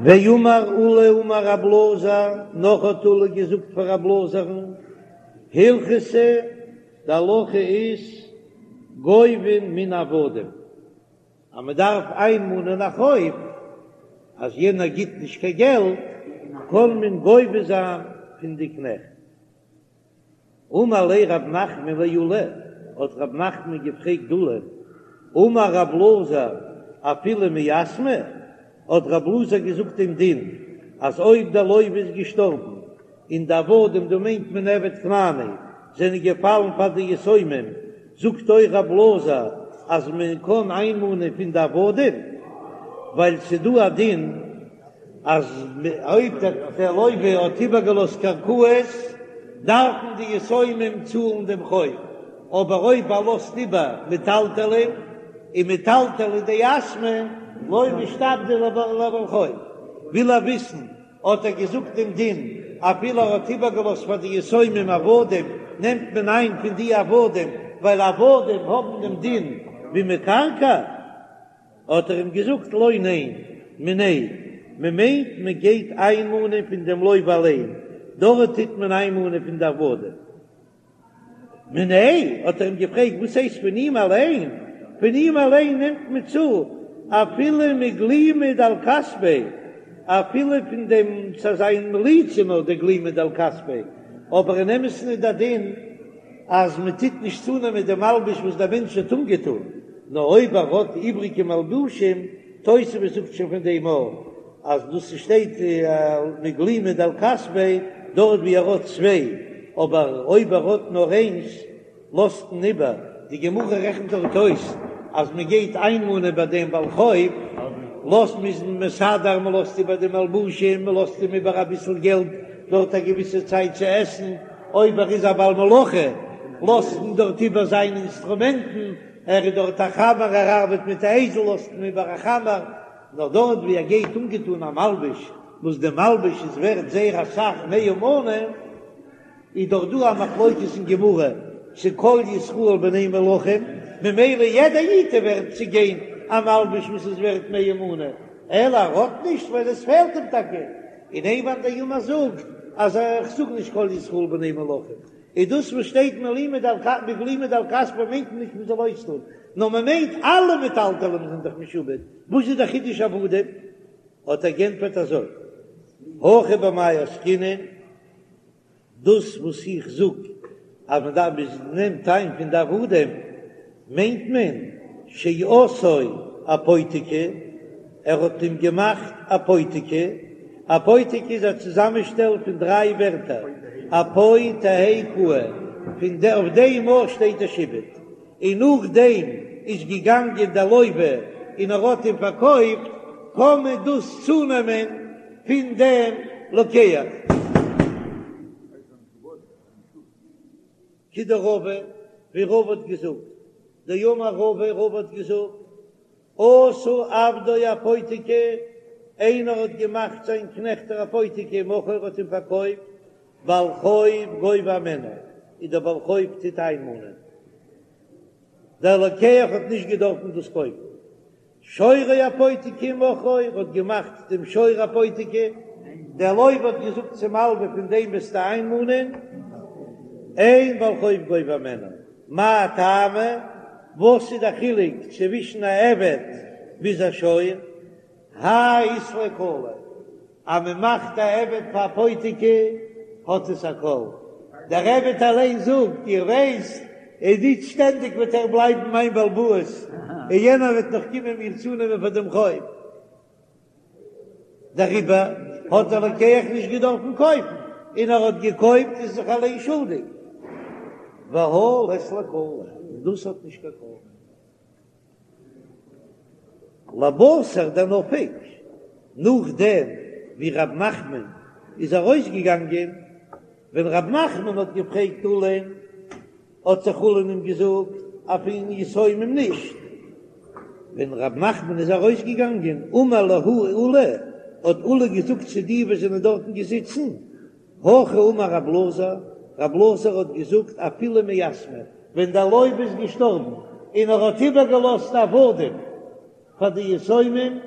ואמר עולא אמר רב אלעזר, נאך האט עולא געזאגט פאר רב אלעזר'ן, הלכתא, די הלכה איז, גובין מן העבדים, אז מען דארף איינמאנען א חוב, אז יענער גיט נישט קיין געלט, קען מען גובה זיין פון די קנעכט. אמר ליה רב נחמן לעולא, האט רב נחמן געפרעגט עולא, אמר רב אלעזר אפילו מיתמי, האט רב אלעזר געזאגט דעם דין אז אויב דער לוה איז געשטארבן און די עבדים, דא מיינט מען עבד כנעני, זענען געפאלן פאר די יתומים, זאגט אויך רב אלעזר אז מען קען איינמאנען פון די עבדים, ווייל ס'דא א דין אז אויב דער לוה האט איבערגעלאזט קרקעות דארפן די יתומים צאלן דעם חוב, אבער אויב ער לאזט איבער מטלטלין און מטלטלי דיתמי לא משתעבדי לבעל חוב, וויל ער וויסן האט ער געזאגט דעם דין אפילו ער האט איבערגעלאזט פאר די יתומים עבדים נעמט מען איין פון די עבדים ווייל עבדים האבן דעם דין ווי מקרקעי. האט ער אים געזאגט לא ניין, מיניה, מען מיינט מען גייט איינמאנען פון דעם לוה אליין, דארט טוט מען איינמאנען פון די עבדים. מיניה, האט ער אים געפרעגט וואס הייסט פון אים אליין, פון אים אליין נעמט מען צו אפילו מגלימא דעל כתפיה, אפילו פון דעם ס'איז זיין מליצה נאר די גלימא דעל כתפיה, אבער אין אמת'ן איז דער דין אז מען טוט נישט צונעמען די מלבוש וואס דער מענטש האט אנגעטון, נאר אויב ער האט איבריגע מלבושים, תוספות זאגט שוין פון דעם אויך אז דאס שטייט מגלימא דעל כתפיה דארט ווי ער האט צוויי, אבער אויב ער האט נאר איינס לאזט מען איבער. די גמרא רעכנט דארט אויס אז מען גייט איינמאנען ביי דעם בעל חוב, לאזט מ'איז מסדר, מען לאזט איבער די מלבושים, מען לאזט אים איבער אביסל געלט דארט א געוויסע צייט צו עסן, אויב ער איז א בעל מלאכה לאזט מען דארט איבער זיינע אינסטרומענטן, ער איז דארט א חמר, ער ארבעט מיט א אייזל לאזט מען איבער א חמר, נאר דארט ווי ער גייט אנגעטון א מלבוש וואס די מלבוש איז ווערט זייער אסאך מאה מנה, איז דאך דא א מחלוקת אין גמרא צו כל ישראל בני מלכים, ממילא יעדע איד איז ווערט צו גיין א מלבוש וואס איז ווערט מאה מנה, אלא ער האט נישט ווייל עס פעלט אים טאקע, און איין מאן דאמר זאגט אז איך זאג נישט כל ישראל בני מלכים, איז דאס וואס שטייט מגלימא דעל כתפיה מיינט מען נישט מען זאל אויסטון, נאר מען מיינט אלע מטלטלים זענען דאך משועבד, וואס איז דער חידוש עבדים? האט ער גענטפערט אזוי, הכא במאי עסקינן, דאס וואס איך זאג אז מען דארף מען נעמט איין פון די עבדים מיינט מען שעשאו אפותיקי, ער האט אים געמאכט אפותיקי, אפותיקי איז א צוזאמענשטעל פון דריי ווערטער אפו תהא קאי, פון די אויף דעם ארט שטייט דער שעבוד, און נאכדעם איז געגאנגען דער לוה און ער האט אים פארקויפט, קען מען דאס צונעמען פון דעם לוקח. כדרבא, ווי רבא האט געזאגט, דאמר רבא, רבא האט געזאגט, עשה עבדו אפותיקי, איינער האט געמאכט זיין קנעכט אפותיקי, ומכרו האט אים פארקויפט, בעל חוב גובה הימנו, איז דער בעל חוב טוט איינמאנען, דער לוקח האט נישט געדארפן דאס קויפן. שורו אפותיקי ומכרו האט געמאכט דעם שור אפותיקי, דער לוה האט געזאגט צום מלווה פון דעם וועסטו איינמאנען, אין בעל חוב גובה הימנו, מאי טעמא, וואס איז דער חילוק צווישן א עבד ביז א שור? האי אית ליה קלא, אז מען מאכט א עבד פאר אפותיקי האט עס א קול, דער עבד אליין זאגט, איר ווייסט, איז נישט שטענדיג וועט ער בלייבן מיין בעל הבית, און יענער וועט נאך קומען מיר צונעמען פאר דעם חוב. דעריבער האט דער לוקח נישט געדארפן קויפן, און ער האט געקויפט איז זיך אליין שולדיג. והא לית ליה קלא, און דאס האט נישט קיין קול. לבתר דנפק, נאכדעם ווי רב נחמן איז ארויסגעגאנגען, ווען רב נחמן האט געפרעגט עולא'ן, האט זיך עולא אים געזאגט אז פון יתומים נישט, ווען רב נחמן איז ארויסגעגאנגען, אמר להו עולא, האט עולא געזאגט צו די וואס זענען דארטן געזיצן, הכי אמר רב אלעזר, רב אלעזר האט געזאגט אפילו מיתמי, ווען דער לוה איז געשטארבן און ער האט איבערגעלאזט עבדים פאר די יתומים.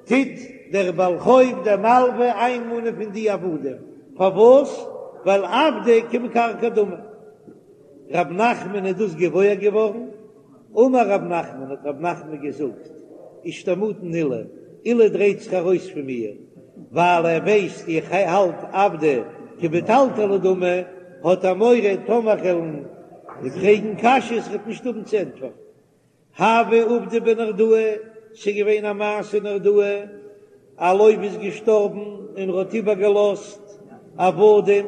טוט דער בעל חוב דער מלווה איינמאנען פון די עבדים, פארוואס? ווייל עבדי כמקרקעי דמי. רב נחמן איז דאס געוואויר געווארן, אמר רב נחמן, האט רב נחמן געזאגט, אישתמטן עולא, עולא דרייט זיך ארויס פון מיר, ווייל ער ווייסט איך האלט עבדי כמטלטלי דמי, האט ער מורא טאמער כ'וועל אים פרעגן קשיות ער וועט נישט האבן צו ענטפערן. הוה עובדא בנהרדעא, ס'איז געווען א מעשה אין נהרדעא, א לוה איז געשטארבן און ער האט איבערגעלאזט עבדים,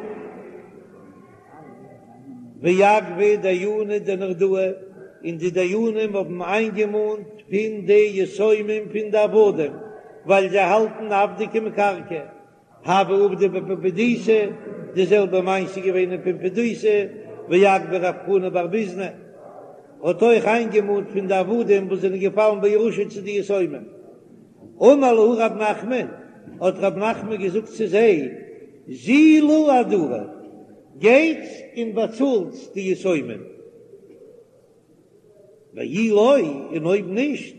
ואגבו דייני דנהרדעא, און די דיינים האבן איינגעמאנט פון די יתומים פון די עבדים, ווייל זיי האלטן עבדי כמקרקעי. הוה עובדא בפומבדיתא, די זעלבע מעשה איז געווען אין פומבדיתא, ואגבה רב חנא בר ביזנא האט אויך איינגעמאנט פון די עבדים וואס זענען געפאלן בירושה צו די יתומים. אמר להו רב נחמן, האט רב נחמן געזאגט צו זיי, זילו אהדורו, גייטס און באצאלטס די יתומים. ואי לא, און אויב נישט,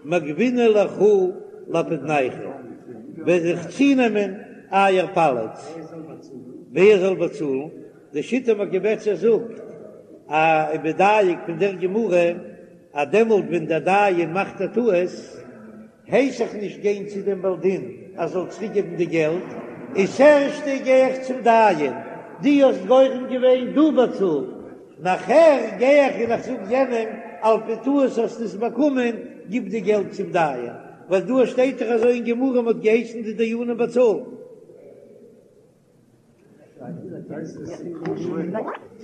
מגבינא לכו לאפודנייכו, וועל איך צונעמען אייער פאליץ. ווער זאל באצאלן? די שיטה מקובצת זאגט, א איז מדייק פון דער גמרא, אז דעמאלט ווען דער דיין מאכט א טעות, הייס איך נישט גיין צו דעם בעל דין ער זאל צוריק געבן די געלט, איז ערשטע גיי איך צום דיין, דו האסט גורם געווען, דו באצאל, נאכער גיי איך און איך זאג יענעם על פי טעות האסטו עס באקומען, גיב די געלט צום דיין, ווייל דא שטייט דאך אזוי אין גמרא מען האט געהייסן די דיינים באצאלן.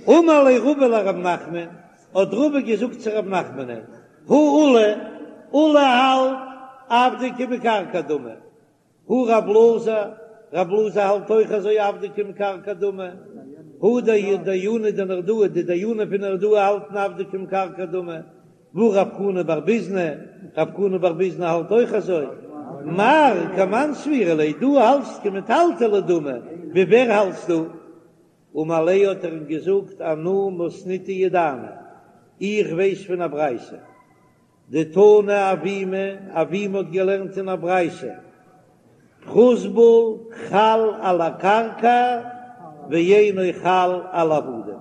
אמר ליה רבא לרב נחמן, האט רבא געזאגט צו רב נחמנ'ען, הא עולא, עולא האלט עבדי כמקרקעי דמי, הא רב אלעזר, רב אלעזר האלט אויך אזוי עבדי כמקרקעי דמי, הא דייני דנהרדעא, די דיינים פון נהרדעא האלטן עבדי כמקרקעי דמי, והא רב חנא בר ביזנא, רב חנא בר ביזנא האלט אויך אזוי, מר כמאן סבירא ליה, דו האלטסט כמטלטלי דמי, ווי ווער האלטסטו? אמר ליה האט ער אים געזאגט אנא מתניתא ידענא, איך ווייס פון א ברייתא, דתנא אבימי, אבימי האט געלערנט אין א ברייתא, פרוזבול חל על הקרקע ואינו חל על העבדים.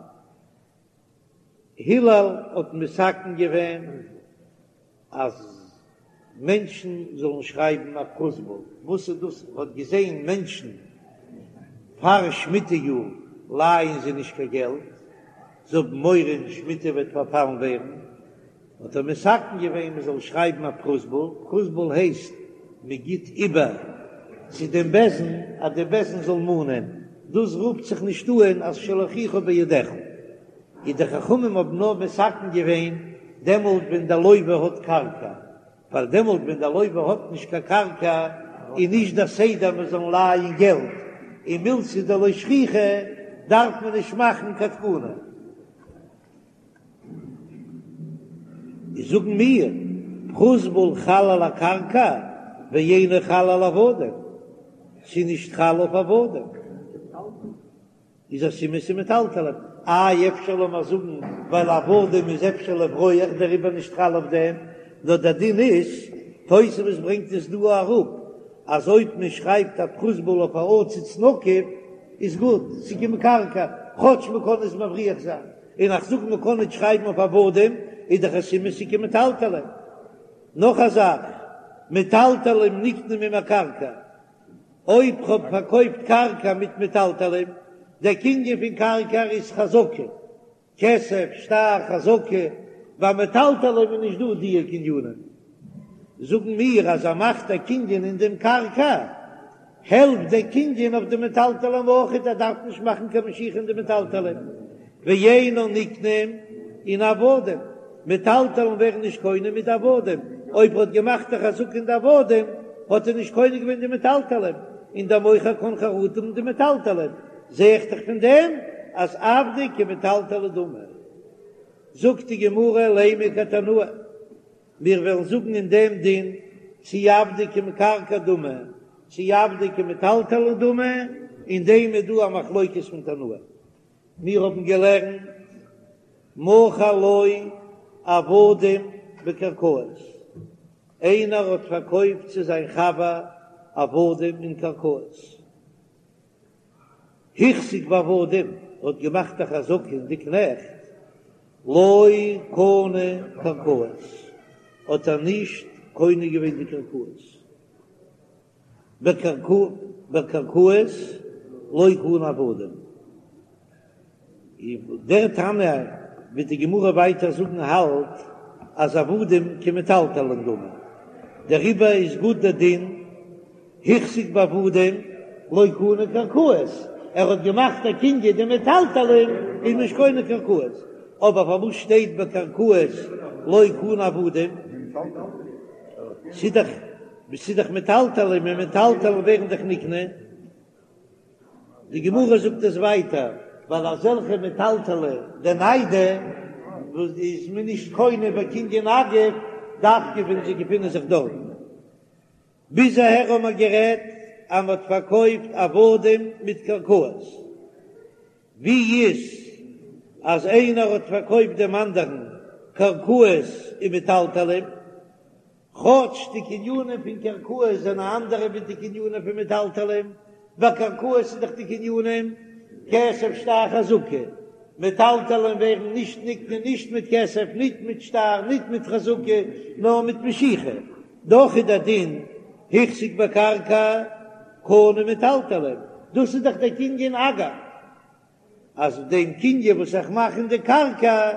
הלל האט מתקן געווען אז מענטשן זאלן שרייבן א פרוזבול, וואס איז דאס? ער האט געזען מענטשן פאר שמיטה יאר לייען זיי נישט קיין געלט, זיי האבן מורא אין שמיטה וועט פארפאלן ווערן, האט ער מתקן געווען מען זאל שרייבן א פרוזבול, פרוזבול הייסט מען גיט איבער צו דעם בית דין אז דער בית דין זאל מאנען, דאס רופט זיך נישט אן אז של אחיך בידך, און די חכמים האבן נאר מתקן געווען דעמאלט ווען דער לוה האט קרקע, ווייל דעמאלט ווען דער לוה האט נישט קיין קרקע איז נישט דער סדר מען זאל לייען געלט, און מילתא דלא שכיחא דארף מען נישט מאכן קיין תקנה. זאגן מיר, פרוזבול חל על הקרקע ואינו חל על עבדים, ס'איז נישט חל אויף עבדים, איז א סימן ס'איז מטלטלין, איי אפשר לאמיר זאגן ווייל עבדים איז אפשר לברוח דעריבער נישט חל אויף דעם, נאר דער דין איז, תוספות ברענגט עס דא אראפ, אז אויב מען שרייבט א פרוזבול אויף א עציץ נקוב איז גוט, ס'איז כמקרקעי, כאטש מען קען עס מבריח זיין. און איך זאג מען קען נישט שרייבן אויף עבדים איז דאך א סימן ס'איז כמטלטלין. נאך א זאך, מטלטלים נקנים עם הקרקע, אויב כ'האב פארקויפט קרקע מיט מטלטלים, דער קנין פון קרקע איז חזקה, כסף, שטר, חזקה, ביי מטלטלים איז נישט דא דיע קנינים. זאגן מיר אז ער מאכט א קנין אין דעם קרקע, העלפט דער קנין אויף די מטלטלים אויכעט, ער דארף נישט מאכן קיין משיכה אין די מטלטלים, ואינן נקנים עם עבדים, מטלטלים ווערן נישט קונה מיט די עבדים, אויב ער האט געמאכט א חזקה אין די עבדים האט ער נישט קונה געווען די מטלטלים, און דער מוכר קען חרטה האבן די מטלטלים, זע איך דאך פון דעם אז עבדי כמטלטלי דמי. זאגט די גמרא לימא כתנאי. מיר וועלן זאגן אין דעם דין צי עבדי כמקרקעי דמי צי עבדי כמטלטלי דמי, אין דעם איז דא א מחלוקת פון תנאים. מיר האבן געלערנט מכר לו עבדים בקרקעות. איינער האט פארקויפט צו זיין חבר עבדים און קרקעות. החזיק בעבדים האט געמאכט א חזקה אין די קנעכט, לא קנה קרקעות, האט ער נישט קונה געווען די קרקעות, בקרקעות לא קנה עבדים. דער תנא וועט די גמרא ווייטער זאגן האלט אז עבדים כמטלטלין דמי, דעריבער איז גוט דער דין החזיק בעבדים לא קנה קרקעות, ער האט געמאכט א קנין די מטלטלין איז נישט קונה קרקעות, אבער פארוואס שטייט בקרקעות לא קנה עבדים? ס'איז דאך ס'איז דאך מטלטלין און מטלטלין ווערן דאך נקנה. די גמרא זאגט עס ווייטער, ווייל אזעלכע מטלטלי דניידי וואס איז מען נישט קונה בקנין אגב, דווקא ווען זיי געפינען זיך דארטן. ביז אהער האבן מיר גערעדט אז מען האט פארקויפט עבדים מיט קרקעות. ווי איז אז איינער האט פארקויפט דעם אנדערן קרקעות און מטלטלין? כאטש די קנינים פון קרקעות זענען אנדערע ווי די קנינים פון מטלטלין, ביי קרקעות איז דאך די קנינים כסף שטר חזקה, מטלטלין ווערן נישט נקנה נישט מיט כסף ניט מיט שטר ניט מיט חזקה נאר מיט משיכה, דאך איז דער דין החזיק בקרקע קנה מטלטלין, דאס איז דאך דער קנין אגב, אז דעם קנין וואס איך מאך אין די קרקע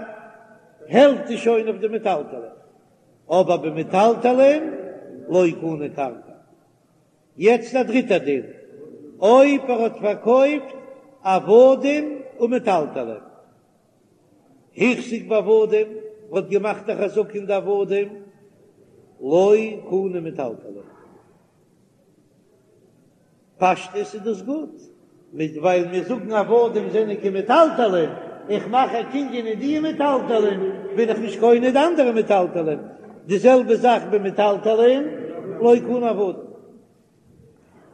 העלפט עס שוין אויף די מטלטלין. אבער במטלטלין לא קנה קרקע. יעצט א דריטע דין, אויב ער האט פארקויפט עבדים ומטלטלין, החזיק בעבדים, האט געמאכט א חזקה אין די עבדים, לא קנה מטלטלין. פשטות איז דאס גוט, מיט ווייל מיר זאגן עבדים זענען כמטלטלין, איך מאך א קנין אין די מטלטלין, בין איך נישט קונה די אנדערע מטלטלין, די זעלבע זאך במטלטלין לא קנה עבדים.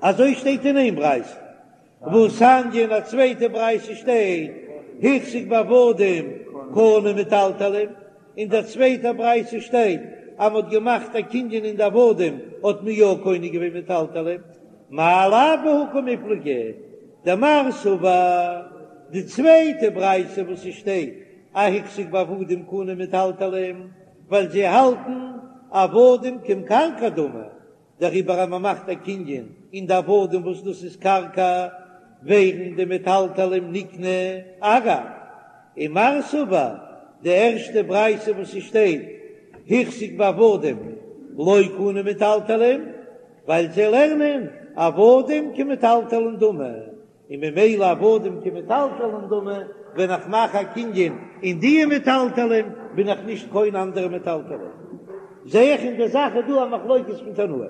אזוי שטייט אין איין ברייתא, והתניא אין א צווייטע ברייתא שטייט החזיק בעבדים קנה מטלטלין, אין דער צווייטער ברייתא שטייט אז מ'האט געמאכט א קנין אין די עבדים האט מען יא קונה געווען מטלטלין, מאי לאו בהא קמיפלגי דמר סבר, די צווייטע ברייתא וואס עס שטייט אז החזיק בעבדים קנה מטלטלין ווייל זיי האלטן עבדים כקרקע דמי, דעריבער אז מען מאכט א קנין אין די עבדים וואס דאס איז קרקע, ווערן די מטלטלים נקנה אגב, ומר סבר, די ערשטע ברייתא וואס ס'שטייט החזיק בעבדים לא קנה מטלטלים, ווייל זיי לערנען עבדים כמטלטלין דמי, און ממילא עבדים כמטלטלין דמי, ווען איך מאך א קנין אין די מטלטלין בין איך נישט קונה אנדערע מטלטלין. זע איך אין די זאך איז דא א מחלוקת פון תנאים.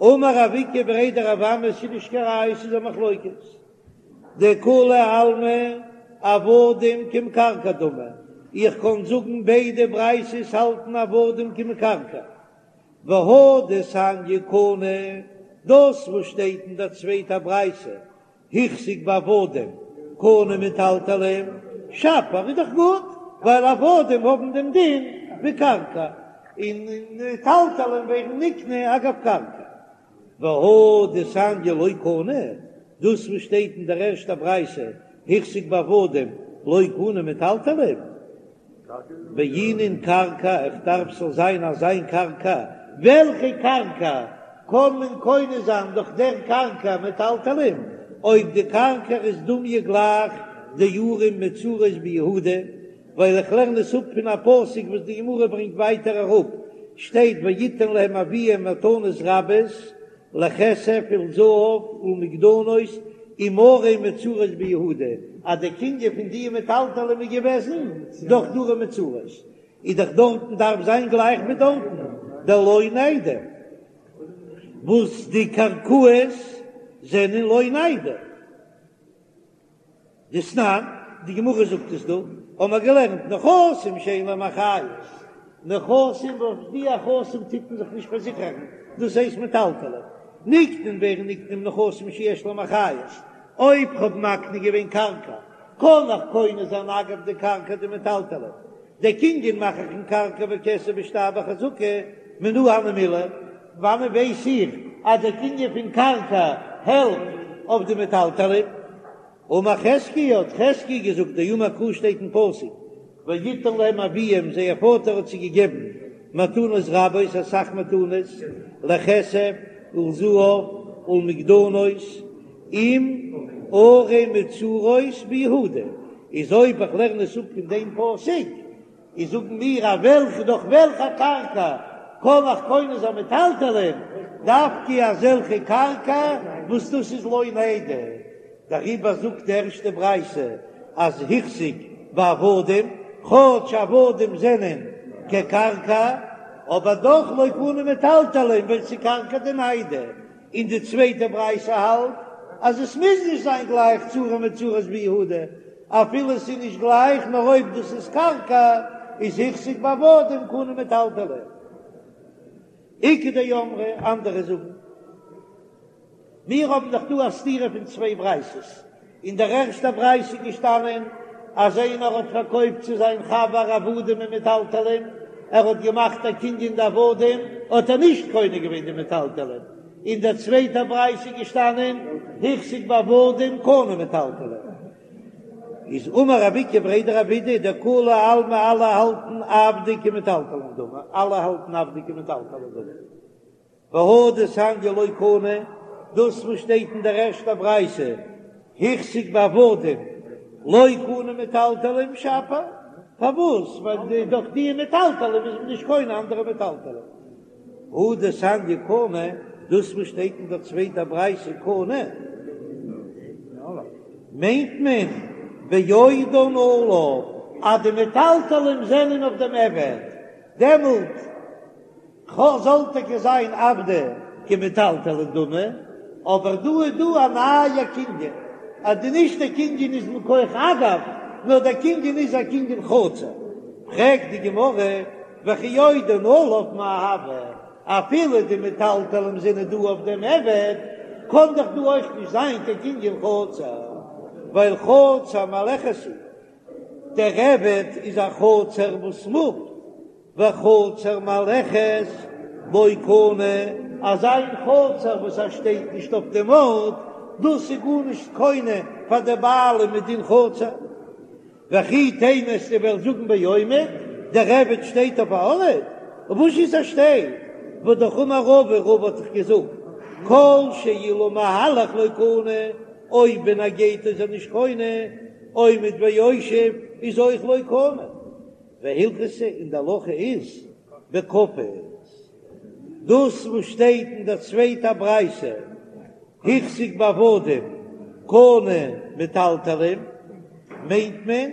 אמר רב איקא בריה דרב אמי ס'איז נישט קיין ראיה ס'איז א מחלוקת. דכולי עלמא עבדים כמקרקעי דמי, איך קען זאגן ביידע ברייתות האלטן עבדים כמקרקעי. והא דתניא קנה, דאס וואס שטייט אין דער צווייטער ברייתא, החזיק בעבדים קנה מטלטלין, שפיר איז דאך גוט, ווייל עבדים האבן דעם דין ווי קרקע, און מטלטלין ווערן נקנה אגב קרקע. והא דתניא לא קנה, דאס וואס שטייט אין דער ערשטער ברייתא, החזיק בעבדים לא קנה מטלטלין, בעינן קרקע, איך דארף ס'זאל זיין אזא קרקע, וועלכע קרקע קען מען קונה זיין דורך דער קרקע מטלטלין, אויב די קרקע איז דומיא גלייך דערים מצורות ביהודה, ווייל איך לערן עס אפ פון א פסוק וואס די גמרא ברענגט ווייטער אראפ, שטייט ויתן להם אביהם מתנות רבות לכסף ולזהב ולמגדנות עם ערים מצורות ביהודה, אז די קנין פון די מטלטלים איז געוועזן דורך די ערים מצורות, איז דאך דארטן דארף זיין גלייך ווי דארטן דלא ניידי, וואס די קרקעות זענען לא ניידי. דתנן, די גמרא זאגט עס דא, האבן מיר געלערנט נכסים שאין להם אחריות, נכסים וואס די נכסים טוט מען זיך נישט פארזיכערן, דאס הייסט מטלטלין, נקנין ווערן נקנה עם נכסים שיש להם אחריות, אויב כ'האב מקנה געווען קרקע, קען איך קונה זיין אגב די קרקע די מטלטלין, די קנין מאך איך אין קרקע בכסף בשטר בחזקה. מנא הני מילי, וואנען ווייס איך אז דער קנין פון קרקע העלפט אויף די מטלטלין? אמר חזקיה, האט חזקיה געזאגט, דאמר קרא שטייט אין פסוק, ויתן להם אביהם, זייער פאטער האט זיי געגעבן מתנות רבות, אסאך מתנות, לכסף ולזהב ולמגדנות, עם ערים מבוצרות ביהודה, איז אויב איך לערן עס אפ פון דעם פסוק, איז זאגן מיר אז וועלכע דורך וועלכע קרקע קען איך קונה זיין מטלטלין, דווקא אזעלכע קרקע וואס דאס איז לא ניידי, דעריבער זאגט די ערשטע ברייתא אז החזיק בעבדים, כאטש עבדים זענען כקרקע, אבער דאך לא קנו מטלטלין ווייל ס'איז קרקע דניידי, און די צווייטע ברייתא האלט אז עס מוז נישט זיין גלייך צו ערים מבוצרות ביהודה, אפילו עס איז נישט גלייך נאר אויב דאס איז קרקע איז החזיק בעבדים קנו מטלטלין. איכא דאמרי, אנדערע זאגן, מיר האבן דאך דא א סתירה פון צוויי ברייתות, אין דער ערשטער ברייתא איז געשטאנען אז איינער האט פארקויפט צו זיין חבר עבדים און מטלטלין, ער האט געמאכט א קנין די עבדים, האט ער נישט קונה געווען די מטלטלין. אין דער צווייטער ברייתא איז געשטאנען החזיק בעבדים קנה מטלטלין. איז אמר רב איקא בריה דרב אידי דכולי עלמא אלע האלטן עבדי כמטלטלין דמי, אלע האלטן עבדי כמטלטלין דמי. והא דתניא לא קנה, דאס וואס שטייט אין דער ערשטער ברייתא, החזיק בעבדים לא קנה מטלטלין שפיר, פארוואס? ווייל דורך די מטלטלין איז מען נישט קונה אנדערע מטלטלין. הא דתניא קנה, דאס וואס שטייט אין דער צווייטער ברייתא קנה, מיינט מען בעודן עליו, אז די מטלטלין זענען אויף דעם עבד, דעמאלט זאל טאקע זיין עבדי כמטלטלין דמי, אבער דא איז דא א נייע קנין, אז די נישט דער קנין איז מכח אגב, נאר דער קנין איז א קנין חצר. פרעגט די גמרא, וכי עודן עליו מאי הוי, אפילו די מטלטלין זענען דא אויף דעם עבד, קען דאך דא אויך נישט זיין קיין קנין חצר, ווייל חצר מהלכת היא, דער עבד איז א חצר וואס מופט, וחצר מהלכת לא קנה, אזא איין חצר וואס ער שטייט נישט אויף דעם ארט, דאס איז גארנישט קונה פאר די בעלים מדין חצר. וכי תימא וועסטו וועלן זאגן בעומד, דער עבד שטייט אויף א ארט, וואס איז ער שטייט? והא אמר רבא, רבא האט דאך געזאגט, כל שאילו מהלך לא קנה, אויב ווען ער גייט איז ער נישט קונה, עומד ויושב איז אויך לא קנה. והלכתא און די הלכה איז בכפות. דאס וואס שטייט אין דער צווייטער ברייתא החזיק בעבדים קנה מטלטלין מיינט מען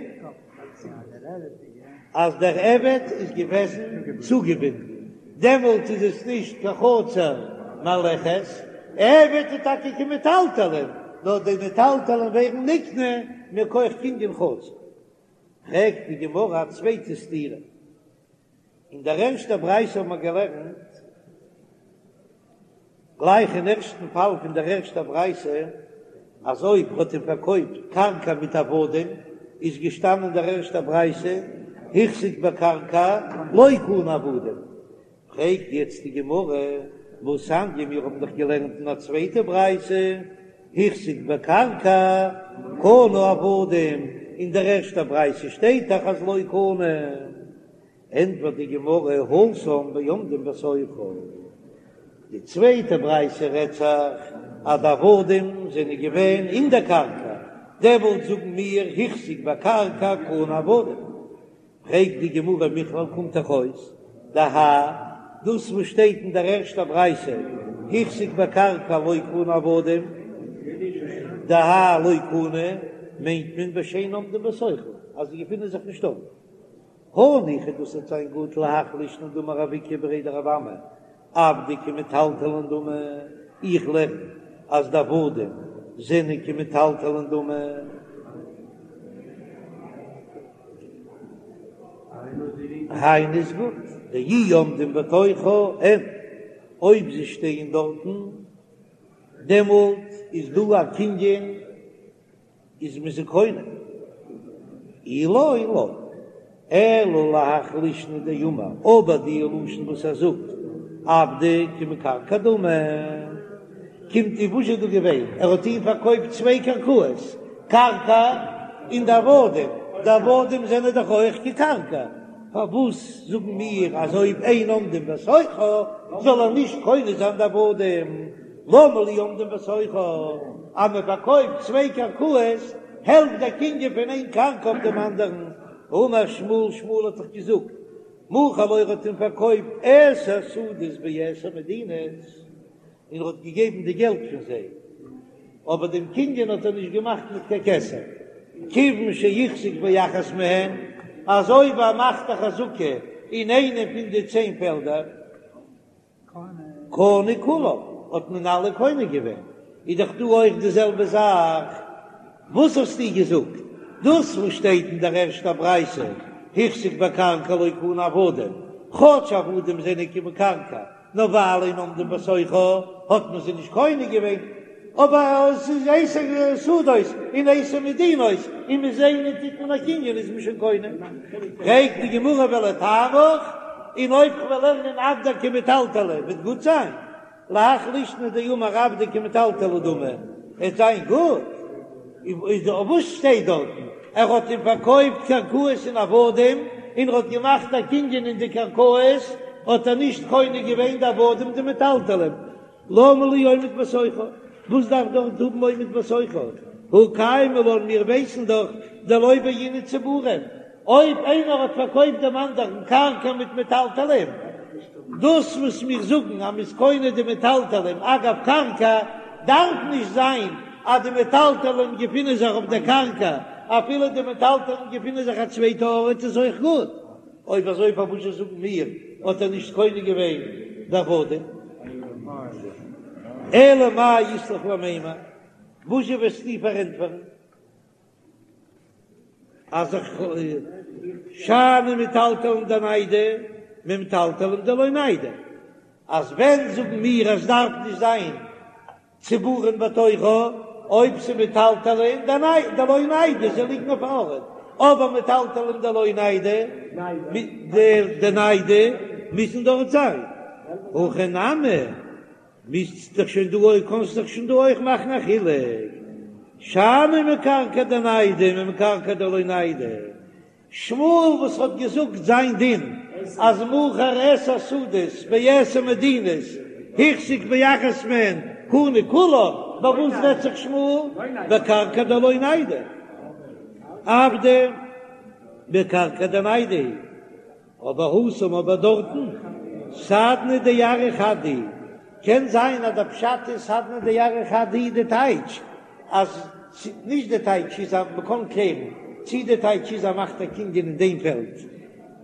אז דער עבד איז געוועזן צוגעבינדן, דעמאלט איז עס נישט קיין חצר מהלכת, עבד איז טאקע כמטלטלין, נאר די מטלטלין ווערן נקנה מכח קנין חצר. פרעגט די גמרא א צווייטע סתירה, אין דער ערשטער ברייתא האבן מיר געלערנט, גלייך אין ערשטן פאל פון דער ערשטער ברייתא, אז אויב האט אים פארקויפט קרקע מיט עבדים, איז געשטאנען אין דער ערשטער ברייתא, החזיק בקרקע לא קנה עבדים, פרעגט יעצט די גמרא, והתניא, מיר האבן דאך געלערנט אין א צווייטע ברייתא, החזיק בקרקע קנה עבדים, אין דער ערשטער ברייתא שטייט דאך אז לא קנה, ענטפערט די גמרא, התם בעומדים בתוכה, די צווייטע ברייתא רעדט זיך אז די עבדים זענען געווען אין דער קרקע, דעמאלט זאגן מיר החזיק בקרקע קנה עבדים. פרעגט די גמרא מכלל קומט דאך אויס דהאי דאס וואס שטייט אין דער ערשטער ברייתא החזיק בקרקע לא קנה עבדים דהאי לא קנה מיינט מען בשאין עומדים בתוכה אז זיי געפינען זיך נישט דארט. הניחא דאס וועט זיין גוט להך לישנא דאמר רב איקא בריה דרב אמי עבדי כמטלטלין דמי, איך לערן אז די עבדים זענען כמטלטלין דמי. היינו איז גוט, דאי עומדים בתוכה אין, אויב זיי שטייען דארטן, דעמאלט איז דא א קנין. איז מען זיי קונה אי לא לא, אלא להך לישנא דאמר, אבער די לשון וואס ער זאגט. עבדי כמקרקעי דמי. קומט אויס וואס איז דא געווען? ער האט אים פארקויפט צוויי קרקעות, קרקע און די עבדים, די עבדים זענען דאך אויך כקרקע, פארוואס זאגן מיר אז אויב אין עומדים בתוכה זאל ער נישט קונה זיין די עבדים? למה לי עומדים בתוכה? אז מען פארקויפט צוויי קרקעות העלפט דער קנין פון איין קרקע אויף דעם אנדערן. האמר שמואל, שמואל האט דאך געזאגט, מכר לו ער האט אים פארקויפט עשר שדות בעשר מדינות, און ער האט געגעבן די געלט פון זיי, אבער דעם קנין האט ער נישט געמאכט מיט קיין כסף, כיוון שהחזיק באחת מהן, אז אויב ער מאכט א חזקה אין איינע פון די צען פעלדער, קנה כולם, האט מען אלע קונה געווען, איז דאך דא אויך די זעלבע זאך, וואס האסטו געזאגט? דאס וואס שטייט אין דער ערשטער ברייתא, החזיק בקרקע לא קנה עבדים, כאטש עבדים זענען כמקרקעי, נאר ווייל אין עומדים בתוכה האט מען זיי נישט קונה געווען, אבער עס איז עשר שדות און עשר מדינות, און מיט איינע טוט מען א קנין איז מען שוין קונה. פרעגט די גמרא ולטעמיך, און אויב כ'וועל לערנען עבדי כמטלטלי וועט גוט זיין? להך לישנא דאמר עבדי כמטלטלי דמי, עט זיין גוט? איז וואס שטייט דארטן? ער האט אים פארקויפט קרקעות און עבדים, און ער האט געמאכט א קנין אין די קרקעות, האט ער נישט קונה געווען די עבדים די מטלטלים, למה לי עומד בתוכה? וואס דארף דארט האבן עומד בתוכה? הא קיימא לן, מיר ווייסן דאך דלא בעינן צבורים, אויב איינער האט פארקויפט דעם אנדערן קרקע מיט מטלטלים, דאס וואס מיר זאגן אז מ'איז קונה די מטלטלים אגב קרקע, דארף נישט זיין אז די מטלטלים געפינען זיך אויף דער קרקע, אפילו די מטלטלים געפינען זיך א צווייטע ארט איז אויך גוט. אויב אזוי פארוואס זאגן מיר האט ער נישט קונה געווען די עבדים? אלא מאי אית לך למימר, וואזשע וועסטו פארענטפערן אז איך שאני מטלטלין דניידי ממטלטלין דלא ניידי, אז ווען זאגן מיר אז ס'דארף נישט זיין צבורין בתוכה, אויב ס'מטלטלין דלא ניידי, זיי ליגן אויף א ארט, אבער מטלטלין דלא ניידי, דניידי מוזן דארט זיין, הכא נמי, מוזט דאך שוין דא אויך, קאנסט דאך שוין דא אויך מאכן א חילוק, שאני מקרקעי דניידי ממקרקעי דלא ניידי, שמואל וואס האט געזאגט זיין דין אז מכר עשר שדות בעשר מדינות החזיק באחת מהן קנה כולן, ביי וואס רעדט זיך שמואל? בקרקע דלא ניידי, עבדי בקרקע דניידי, אבער התם אבער דארטן סדנא דארעא חד הוא, קען זיין אז דער פשט איז סדנא דארעא חד הוא די טייטש אז נישט די טייטש איז אז מ'קען קלערן צי די טייטש איז אז מאכט א קנין אין דעם פעלד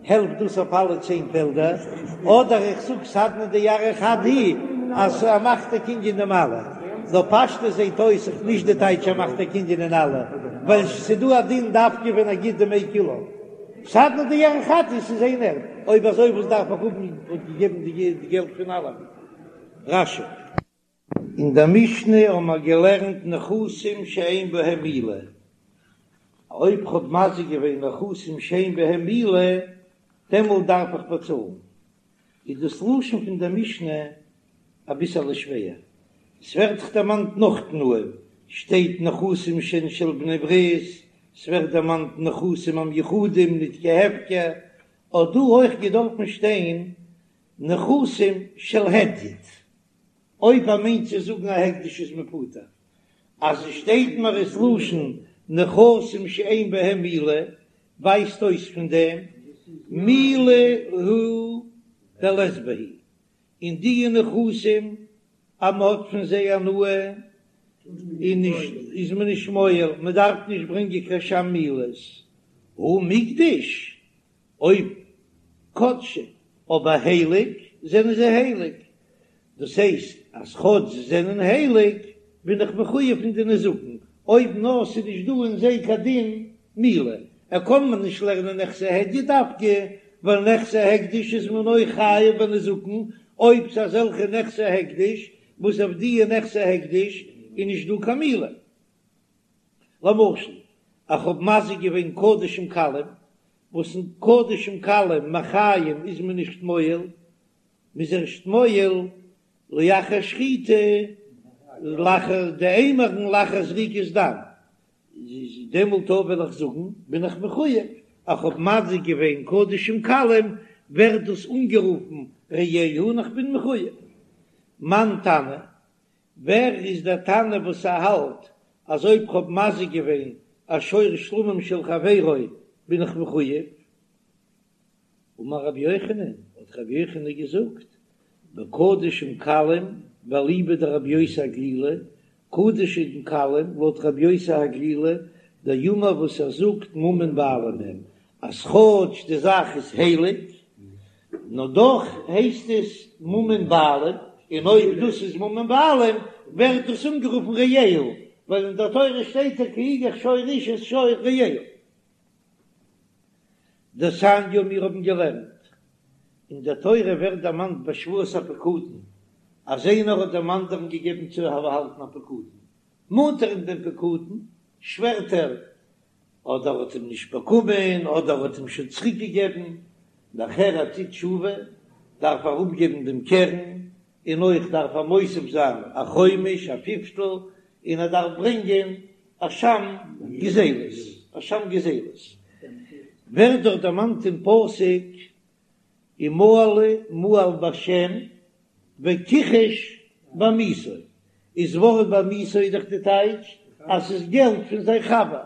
העלפט דאס אויף אלע צען פעלדער, אדער איך זאג סדנא דארעא חד הוא אז ער מאכט א קנין אין דעם אלע, נאר פשטות זעט אויס איך נישט די טייטש ער מאכט א קנין אין אלע, ווייל ס'דא א דין דווקא ווען ער גיט דמי כולן. סדנא דארעא חד הוא ס'איז איין ערד, אויב אזוי וואס דארף איך האבן האט געגעבן די געלט פון אלעמען? רש"י. אין דער משנה האבן מיר געלערנט נכסים שאין בהם מעילה, אויב כ'האב מזיק געווען נכסים שאין בהם מעילה, דעמאלט דארף איך באצאלן. איז דאס לשון פון דער משנה אביסעלע שווער, עס ווערט דאך דערמאנט נאך תנאים, שטייט נכסים שהן של בני ברית, ס'ווערט דערמאנט נכסים המיוחדים ניט כהפקר, האט דא אויך געדארפן שטיין נכסים של הדיוט. אויב ער מיינט צו זאגן א הקדש איז מען פטור, אז עס שטייט מיר עס לשון נכסים שאין בהם מעילה, ווייזט אויס פון דעם מעילה הוא דלית בהו, אין די נכסים אז מען האט פון זיי הנאה איז נישט איז מען נישט מועל, מען דארף נישט ברענגען קיין אשם מעילות, הא מיקדש אויב קדשי, אבער הייליג זענען זיי הייליג, דאס הייסט אז כאטש זיי זענען הייליג בין איך מחויב פון די נזקין, אויב נאר ס'איז נישט דא אין זיי קיין דין מעילה, ער קען מען נישט לערנען נכסי הדיוט דווקא, ווייל נכסי הקדש איז מען אויך חייב בנזקין, אויב ס'איז אזעלכע נכסי הקדש וואס אויף דיע נכסי הקדש איז נישט דא קיין מעילה. למשל, איך האב מזיק געווען קדשים קלים, וואס אין קדשים קלים מחיים איז מען נישט מועל. מ'איז ערשט מועל לאחר שחיטה, לאחר די אימורין לאחר זריקת דם, דעמאלט אויב וועל איך זאגן בין איך מחויב, איך האב מזיק געווען קדשים קלים ווערט דאס אנגערופן רעהו און איך בין מחויב. מאן תנא, ווער איז דער תנא וואס ער האלט אז אויב כ'האב מזיק געווען א שור שלמים של חברו בין איך מחויב? אמר רבי יוחנן, האט רבי יוחנן געזאגט, בקדשים קלים ואליבא דרבי יוסי הגלילי, קדשים קלים לויט רבי יוסי הגלילי, דאמר וואס ער זאגט ממון בעלים הם, אז כאטש די זאך איז הייליג, נאר דאך הייסט עס ממון בעלים, און אויב דאס איז ממון בעלים ווערט דאס אנגערופן רעהו, ווייל אין דער תורה שטייט כי יגח שור איש את שור רעהו. דתניא מיר האבן געלערנט, אין דער תורה ווערט דערמאנט ביי שבועת הפקדון אז איינער האט דעם אנדערן געגעבן צו באהאלטן א פקדון, מאנט ער אים דעם פקדון, שווערט ער אדער האט אים נישט באקומען אדער האט אים שוין צוריק געגעבן, נאכער ער טוט תשובה דארף ער אפגעבן דעם קרן, און אויך דארף ער מוסיף זיין א חומש א פיפטל, און ער דארף ברענגען אשם גזילות, אשם גזילות ווערט דאך דערמאנט אין פסוק ומעלו מעל בשם וכחש בעמיתו, איז ווארט בעמיתו איז דאך די טייטש אז ס'איז געלט פון זיין חבר,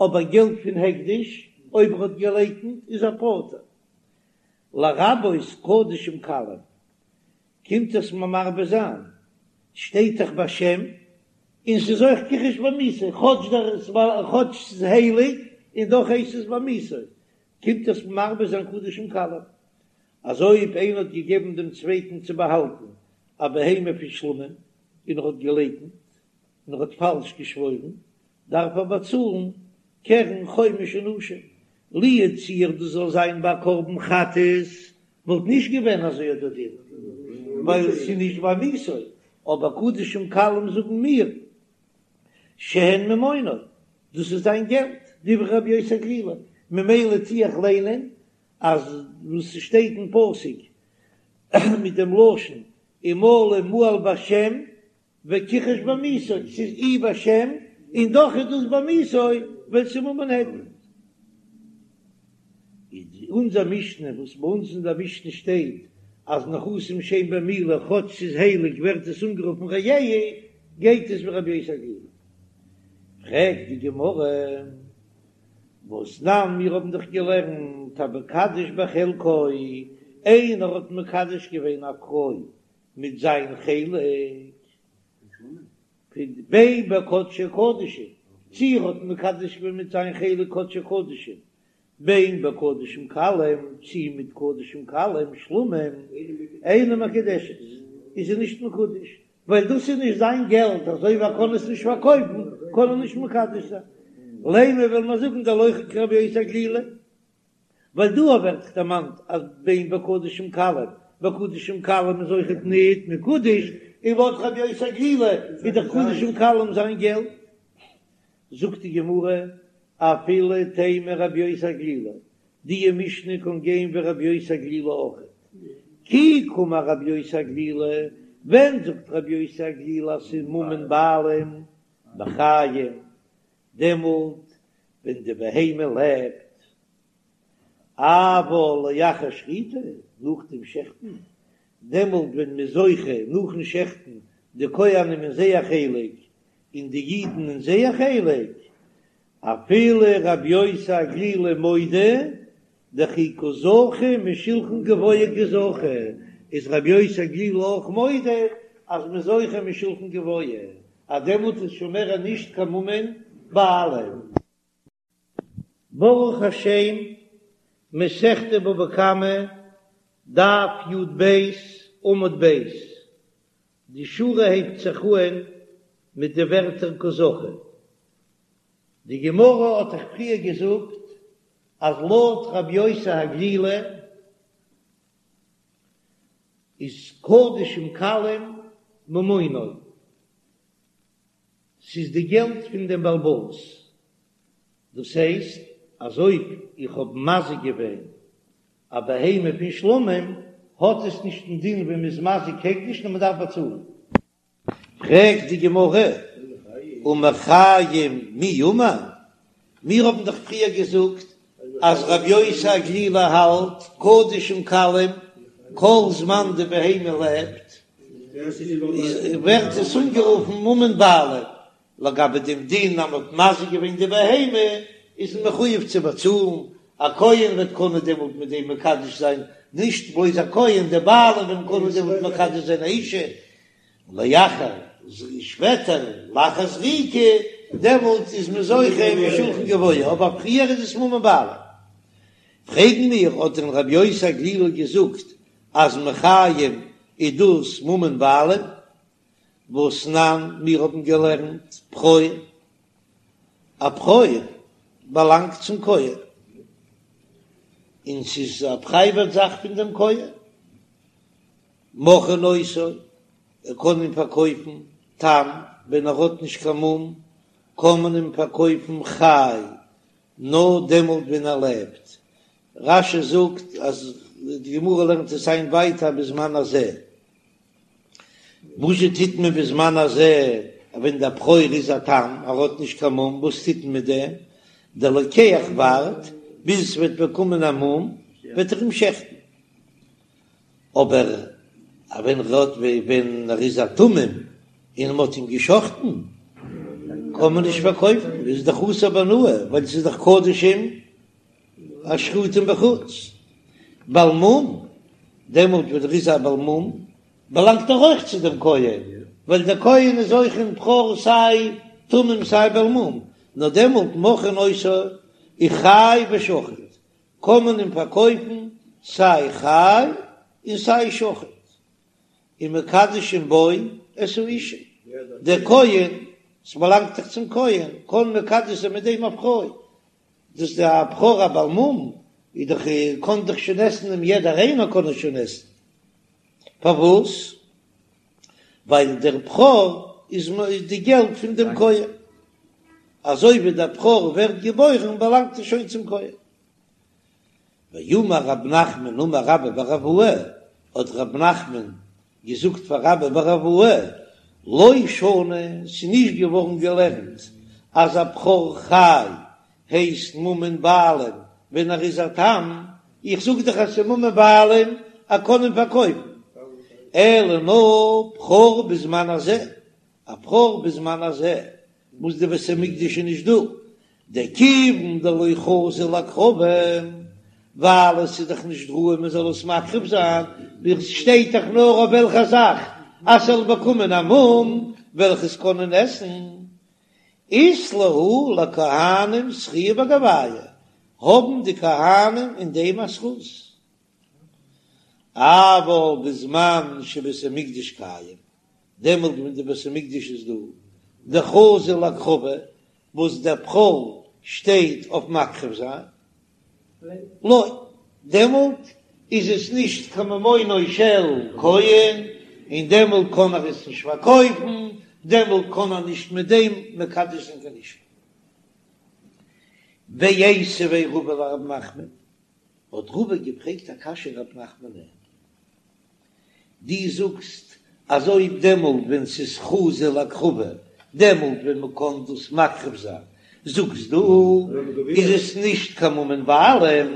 אבער געלט פון הקדש אויב ער האט געלייקנט איז ער פטור. לרבות קדשים קלים קומט עס מיר מרבה זיין, שטייט דאך בשם און ס'איז אויך כחש בעמיתו, כאטש דער כאטש ס'איז הייליג און דאך הייסט עס בעמיתו, קומט עס מרבה זיין קדשים קלים, אז אויב איינער האט געגעבן דעם צווייטן צו באהאלטן א בהמה פון שלמים און ער האט געלייקנט און ער האט פאלש געשוואוירן, דארף ער באצאלן קרן חומש און אשם. לו יצוייר דאס זאל זיין ביי קרבן חטאת וואלט נישט געווען אזוי אט דער דין, ווייל ס'איז נישט בעמיתו, אבער קדשים קלים זאגן מיר שהן ממונו, דאס איז זיין געלט, דברי רבי יוסי הגלילי, ממילא טו איך ליינען אז וואס ס'שטייט אין פסוק מיט דעם לשון ומעלו מעל בשם וכחש בעמיתו, ס'איז אי בשם און דאך איז דאס בעמיתו ווייל ס'איז ממון הדיוט. איז אונזער משנה וואס ביי אונז אין דער משנה שטייט אז נכסים שאין בהם מעילה כאטש ס'איז הייליג ווערט עס אנגערופן רעהו גייט עס ווי רבי יוסי הגלילי. פרעגט די גמרא, והתנן מיר האבן דאך געלערנט המקדש בחלקו, איינער האט מקדש געווען א פרוי מיט זיין חלק, בין בקדשי קדשים, צי ער האט מקדש געווען מיט זיין חלק קדשי קדשים, בין בקדשים קלים, צי מיט קדשים קלים, שלמים, אינה מקודשת, איז זי נישט מקודש, ווייל דאס איז נישט זיין געלט, אזוי ווי ער קען עס נישט פארקויפן, קען ער נישט מקדש זיין. לימא וועל מיר זאגן דלא כרבי יוסי הגלילי, ווייל דא ווערט דערמאנט אז בין בקדשים קלים, בקדשים קלים איז אויכעט ניט מקודש, און לויט רבי יוסי הגלילי איז דאך קדשים קלים זיין געלט. זאגט די גמרא, אפילו תימא רבי יוסי הגלילי, די משנה קען גיין ווי רבי יוסי הגלילי אויכעט. כי קאמר רבי יוסי הגלילי, ווען זאגט רבי יוסי הגלילי אז ס'איז ממון בעלים בחיים, דעמאלט ווען די בהמה לעבט, אבל לאחר שחיטה, נאך דעם שעכטן, דעמאלט ווען מ'איז זוכה נאכן שעכטן די כהנים אין זייער חלק און די אידן אין זייער חלק, אפילו רבי יוסי הגלילי מודה דכי קא זכו משולחן גבוה קא זכו, איז רבי יוסי הגלילי אויך מודה אז מ'איז זוכה משולחן גבוה, אז דעמאלט איז שוין מער נישט קיין ממון בעלים. ברוך השם, מסכת בבא קמא, דף י"ב, עמוד ב', די שורה הייבט זיך אהן מיט די ווערטער קא זכו. די גמרא האט דאך פריער געזאגט אז לויט רבי יוסי הגלילי איז קדשים קלים ממונו, ס'איז די געלט פון דעם בעל הבית, דאס הייסט אז אויב איך האב מזיק געווען א בהמה פון שלמים. האט עס נישט דעם דין ווי מ'איז מזיק הקדש נאר מ'דארף באצאלן. פרעגט די גמרא, ומחיים מי אמר? מיר האבן דאך פריער געזאגט אז רבי יוסי הגלילי האלט קדשים קלים כל זמן די בהמה לעבט ווערט עס אנגערופן ממון בעלים, לגבי דעם דין אז מ'האט מזיק געווען די בהמה איז מען מחויב צו באצאלן, א כהן וועט קענען דעמאלט מיט דעם מקדש זיין, נישט בלויז א כהן, די בעלים וועלן קענען דעמאלט מקדש זיין א אישה, לאחר שפעטער לאחר זריקה, דעמאלט איז מען זוכה משולחן גבוה, אבער פריער איז עס ממון בעלים. פרעגן מיר, האט דען רבי יוסי הגלילי געזאגט אז מחיים איז דאס ממון בעלים? והתנן, מיר האבן געלערנט בכור, א בכור באלאנגט צום כהן, און ס'איז א פרייוואט זאך פון דעם כהן, מוכרין אותו, ער קען אים פארקויפן תם, ווען ער האט נישט קיין מום, קען מען אים פארקויפן חי, נאר דעמאלט ווען ער לעבט. רש"י זאגט אז די גמרא לערנט עס איין ווייטער בזמן הזה. וואזשע טוט מען בזמן הזה ווען דער בכור איז א תם, ער האט נישט קיין מום, וואס טוט מען מיט דעם? דער לוקח ווארט ביז עס וועט באקומען א מום, וועט ער אים שעכטן. אבער ווען ער האט ווען ער איז א תמים און מען האט אים געשחטן קען מען נישט פארקויפן, איז דאך אסור בהנאה ווייל ס'איז דאך קדשים השחוטין בחוץ. בעל מום, דעמאלט ווען ער איז א בעל מום באלאנגט ער אויך צו דעם כהן, ווייל דער כהן איז אויך אין בכור סיי תמים סיי בעל מום, נאר דעמאלט מוכרין אותו חי ושחוט, קען מען אים פארקויפן סיי חי און סיי שחוט, ומקדשין בו את האשה, דער כהן, ס'באלאנגט דאך צום כהן, קען מקדש זיין מיט דעם א פרוי, דאס איז א בכור א בעל מום, איז דאך קען דאך שוין עסן אים יעדער איינער קען עס שוין עסן, פארוואס? ווייל דער בכור איז די געלט פון דעם כהן, אזוי ווי דער בכור ווערט געבוירן באלאנגט ער שוין צום כהן. ואמר רב נחמן אמר רבה בר אבוה, האט רב נחמן געזאגט פאר רבה בר אבוה, לא שנו, ס'איז נישט געווארן געלערנט אז א בכור חי הייסט ממון בעלים ווען ער איז א תם, איך זאג דאך אז ס'איז ממון בעלים ער קען אים פארקויפן, אלא נאר בכור בזמן הזה, א בכור בזמן הזה וואס די בית המקדש איז נישט דא, דכיון דלא חזי להקרבה, ווייל עס איז דאך נישט ראוי מען זאל עס מקריב זיין, ווי עס שטייט דאך נאר אויף וועלכע זאך אז ס'זאל באקומען א מום וועל איך עס קענען עסן, אית להו לכהנים זכייה בגוייהו, האבן די כהנים אין דעם א זכות. אבל בזמן שבית המקדש קיים, דעמאלט ווען די בית המקדש איז דא, דחזי להקרבה, וואס דער בכור שטייט אויף מקריב זיין, לא, דעמאלט איז עס נישט קיין ממונו של כהן, און דעמאלט קען ער עס נישט פארקויפן, דעמאלט קען ער נישט מיט דעם מקדש זיין קיין אישה. ואיתיביה רבא לרב נחמן, האט רבא געפרעגט א קשיא רב נחמנ'ען, דו זאגסט אז אויב דעמאלט ווען ס'איז חזי להקרבה, דעמאלט ווען מ'קען דאס מקריב זיין, זאגסט דו איז עס נישט קיין ממון בעלים,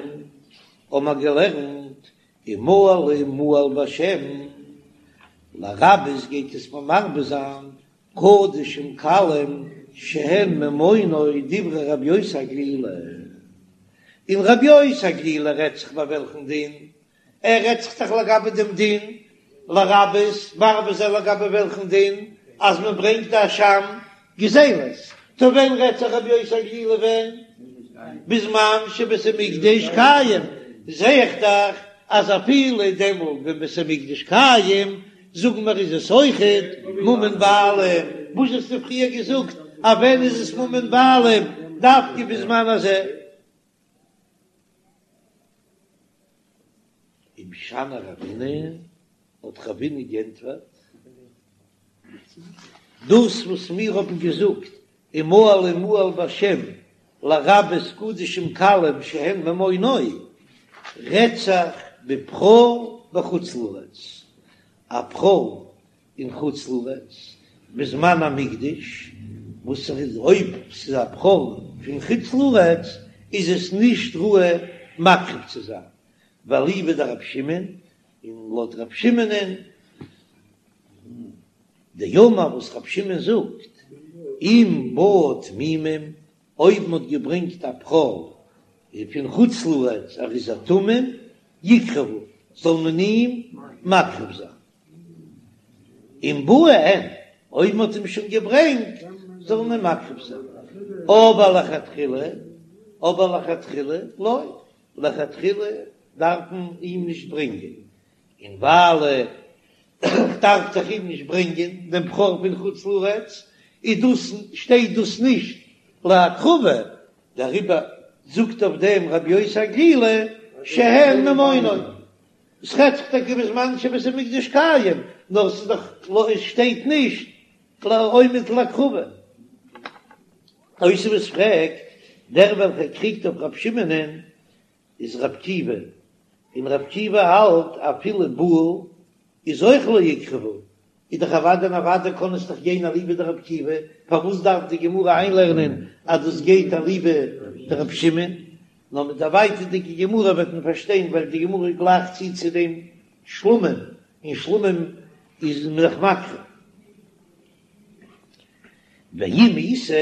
האבן מיר געלערנט ומעלה מעל בשם, לרבות גייט עס מיר מרבה זיין קדשים קלים שהן ממונו דברי רבי יוסי הגלילי, און רבי יוסי הגלילי רעדט זיך ביי וועלכן דין? ער רעדט זיך דאך לגבי דעם דין לרבות מרבה זיין לגבי וועלכן דין אז מען ברענגט א אשם גזילות, טא ווען רעדט זיך רבי יוסי הגלילי ווען? בזמן שבית המקדש קיים, זע איך דאך אז אפילו דעמאלט ווען בית המקדש קיים זאגן מיר איז עס אויכעט ממון בעלים, וואס האסטו פריער געזאגט אז ווען איז עס ממון בעלים דווקא בזמן הזה? ומשני רבינא, האט רבינא גענטפערט, דאס וואס מיר האבן געזאגט ומעלה מעל בשם לרבות קדשים קלים שהן ממונו, רעדט זיך בבכור. בחוץ לארץ, א בכור אין חוץ לארץ בזמן המקדש, וואס איז אויב ס'איז א בכור פון חוץ לארץ איז עס נישט ראוי מקריב צו זיין, ואליבא דרבי שמעון, און לויט רבי שמעונ'ען דאמר וואס רבי שמעון זאגט, אם באו תמימים, אויב מ'האט געברענגט א בכור פון חוץ לארץ ער איז א תמים, יקרבו, זאל מען אים מקריב זיין. אם באו אין, אויב מ'האט אים שוין געברענגט, זאל מען אים מקריב זיין. אבער לכתחילה, אבער לכתחילה לא, לכתחילה דארף מען אים נישט ברענגען, און ווייל כ'דארף דאך אים נישט ברענגען דעם בכור פון חוץ לארץ, איז דאס שטייט דאס נישט להקרבה, דעריבער זאגט אויף דעם רבי יוסי הגלילי שהן ממונו. עס רעדט זיך טאקע בזמן שבית המקדש קיים, נאר ס'איז דאך לא עס שטייט נישט עומד להקרבה. תוספות פרעגט, דער וועלכער קריגט אויף רבי שמעונ'ען איז רבי עקיבא, און רבי עקיבא האלט אפילו באו איז אויך לא יקרבו, איז דאך אוודאי און אוודאי קען עס דאך גיין אליבא דרבי עקיבא, פארוואס דארף די גמרא איינלערנען אז דאס גייט אליבא דרבי שמעון? נאר מיט די ווייטערדיגע גמרא וועט מען פארשטיין ווייל די גמרא גלייכט צו צו דעם שלמים, און שלמים איז מען דאך מקריב. ואם איתא,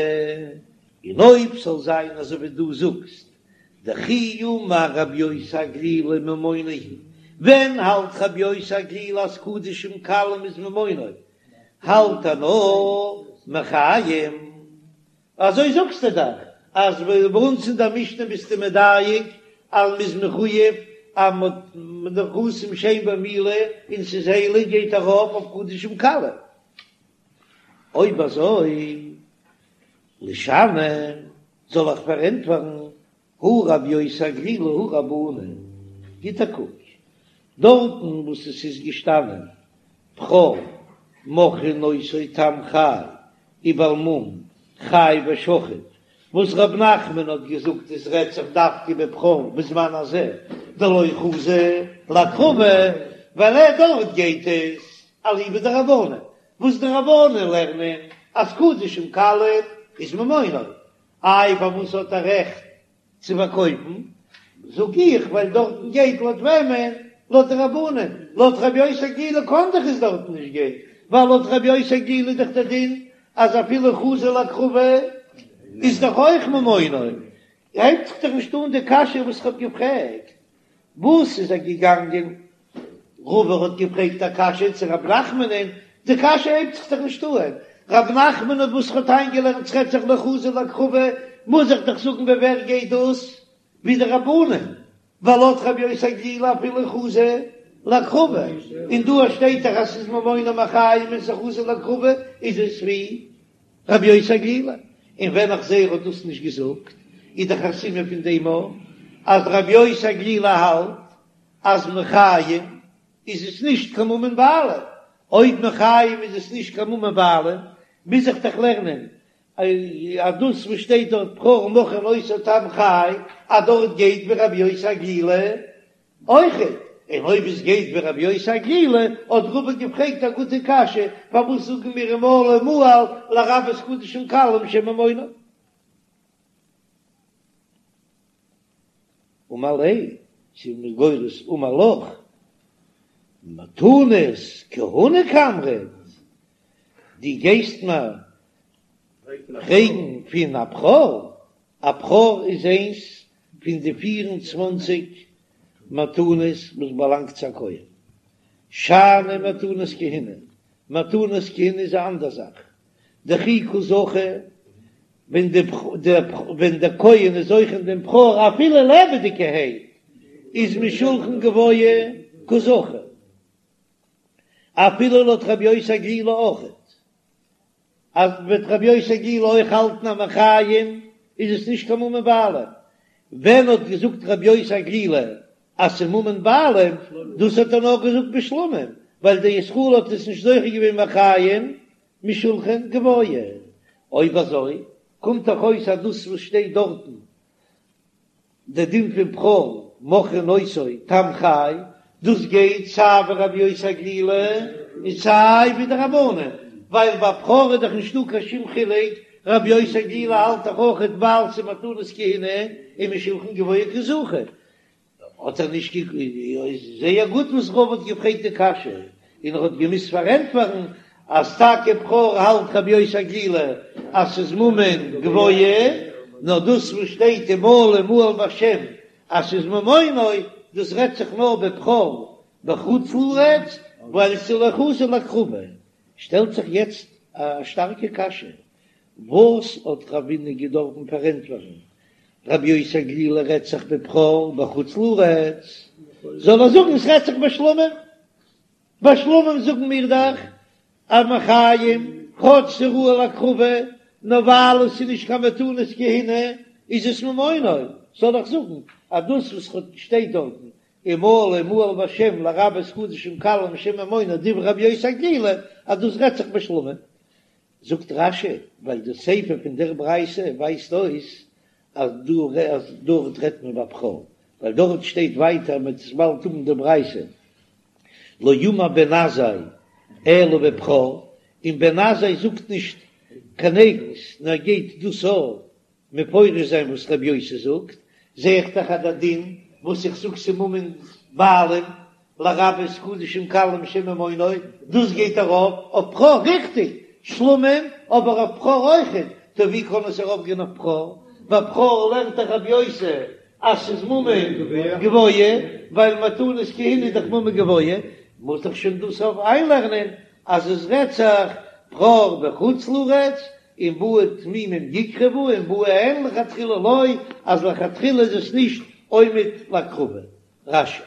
און אויב ס'זאל זיין אזוי ווי דו זאגסט, דכי אמר רבי יוסי הגלילי ממונו הוא, ווען האלט רבי יוסי הגלילי אז קדשים קלים איז ממונו, האלט ער נאר מחיים, אזוי זאגסטו דאך אז ביי אונז אין דער משנה ביסטו מדייק אז מ'איז מחויב אז מ'האט נכסים שאין בהם מעילה און ס'איז הייליג גייט ארויף אויף קדשים קלים. אויב אזוי לישני זאל איך פארענטפערן הא רבי יוסי הגלילי הא רבנן, גיט א קוק דארטן וואס עס איז געשטאנען בכור מוכרין אותו תם חי ובעל מום חי ושחוט, וואס רב נחמן האט געזאגט עס רעדט זיך דווקא בבכור בזמן הזה דלא חזי להקרבה, ווייל ער דארט גייט עס אליבא דרבנן, וואס די רבנן לערנען אז קדשים קלים איז ממונו, איי פארוואס האט ער רעכט צו פארקויפן? זאג איך ווייל דארטן גייט לויט וועמען? לויט די רבנן, לויט רבי יוסי הגלילי קאן דאך עס דארטן נישט גיין, ווייל לויט רבי יוסי הגלילי איז דאך דער דין אז אפילו חזי להקרבה איז דאך אויך ממונו, הייבט זיך דאך נישט אן די קשיא וואס איך האב געפרעגט, וואס איז ער געגאנגען רבא האט געפרעגט א קשיא צו רב נחמנ'ן, די קשיא הייבט זיך דאך נישט אהן, רב נחמן האט וואס האט איינגעלערנט ס'רעדט זיך לא חזי להקרבה, מוז איך דאך זאגן ווי ווער גייט דאס, ווי די רבנן, ווייל לויט רבי יוסי הגלילי אפילו חזי להקרבה, און דא שטייט דאך אז ס'איז ממונו מחיים און ס'חזי להקרבה, איז עס ווי רבי יוסי הגלילי, און ווען איך זעה ער האט דאס נישט געזאגט, איז דאך א סימן פון דעם אויך אז רבי יוסי הגלילי האלט אז מחיים איז עס נישט קיין ממון בעלים, אויב מחיים איז עס נישט קיין ממון בעלים, מוז איך דאך לערנען אז דאס וואס שטייט דארט בכור מוכרין אותו תם חי, אז דארט גייט ווי רבי יוסי הגלילי אויכעט, און אויב עס גייט ווי רבי יוסי הגלילי, האט רבא געפרעגט א גוטע קשיא, פארוואס זאגן מיר ומעלה מעל לרבות קדשים קלים שממונו? אמר ליה, צו מ'איז גורס אמר לך, מתנות כהונה קאמרת, דו גייסט מיר פרעגן פון א בכור, א בכור איז איינס פון די פיר און צוואנציג מתנות וואס באלאנגט צו א כהן, שאני מתנות כהונה, מתנות כהונה איז א אנדער זאך, דכי קא זכי, ווען די ווען דער כהן איז זוכה אין דעם בכור אפילו לעבעדיגערהייט איז משולחן גבוה קא זכי, אפילו לויט רבי יוסי הגלילי אויכעט, אז וועט רבי יוסי הגלילי אויך האלטן אז מחיים איז עס נישט קיין ממון בעלים, ווען האט געזאגט רבי יוסי הגלילי אז ס'איז ממון בעלים, דאס האט ער נאר געזאגט בשלמים, ווייל דער ישראל האט עס נישט זוכה געווען מחיים משולחן גבוה. אויב אזוי קומט דאך אויס אז דאס וואס שטייט דארטן די דין פון בכור מוכרין אותו תם חי. דאס גייט סיי ווי רבי יוסי הגלילי און סיי ווי די רבנן, ווייל ביי בכור איז דאך נישטא קיין שום חילוק, רבי יוסי הגלילי האלט דאך אויכעט ווייל ס'איז מתנות כהונה איז משולחן גבוה קא זכו, האט ער נישט גע. איז זייער גוט וואס רבא האט געפרעגט די קשיא, און ער האט געמוזט פארענטפערן אז טאקע בכור האלט רבי יוסי הגלילי אז ס'איז ממון גבוה, נאר דאס וואס שטייט ומעלה מעל בשם אז ס'איז ממונו, דאס רעדט זיך נאר בבכור בחוץ לארץ, ווייל ס'איז לא חזי להקרבה. שטעלט זיך יעצט א שטארקע קשיא, וואס האט רבינא געדארפן פארענטפערן רבי יוסי הגלילי רעדט זיך בבכור בחוץ לארץ, זאל ער זאגן עס רעדט זיך בשלמים, בשלמים זאגן מיר דאך אז מחיים כאטש ס'ראוי להקרבה, נאר ווייל עס איז נישט קיין מתנות כהונה איז עס ממונו, זאל איך זאגן אז דאס וואס שטייט דארטן ומעלה מעל בשם לרבות קדשים קלים שהם ממונו דברי רבי יוסי הגלילי אז דאס רעדט זיך בשלמים, זאגט רש"י, ווייל די סיפא פון דער ברייתא ווייזט אויס אז דארט רעדט מען בבכור, ווייל דארט שטייט ווייטער מ'וועט עס באלד האבן די ברייתא, לא אמר בן עזאי אלא בבכור, און בן עזאי זאגט נישט קיין אייגנס נאר גייט דאס אויך מפרש זיין וואס רבי יוסי זאגט, זע איך דאך אז דער דין וואס איך זאג ס'ממון בעלים לרבות קדשים קלים שהם ממונו, דאס גייט ארויף אויף בכור, ריכטיג, שלמים, אבער אויף בכור אויכעט, טא ווי קען עס ארויף גיין אויף בכור? ביי בכור לערנט דאך רבי יוסי אז ס'איז ממון גבוה, ווייל מתנות כהונה איז דאך ממון גבוה, מוז דאך שוין דאס אויף איינלערנען אז עס רעדט זיך בכור בחוץ לארץ, און באו תמימים יקרבו און באו אין לכתחילה לא, אז לכתחילה איז עס נישט עומד להקרבה. רש"י.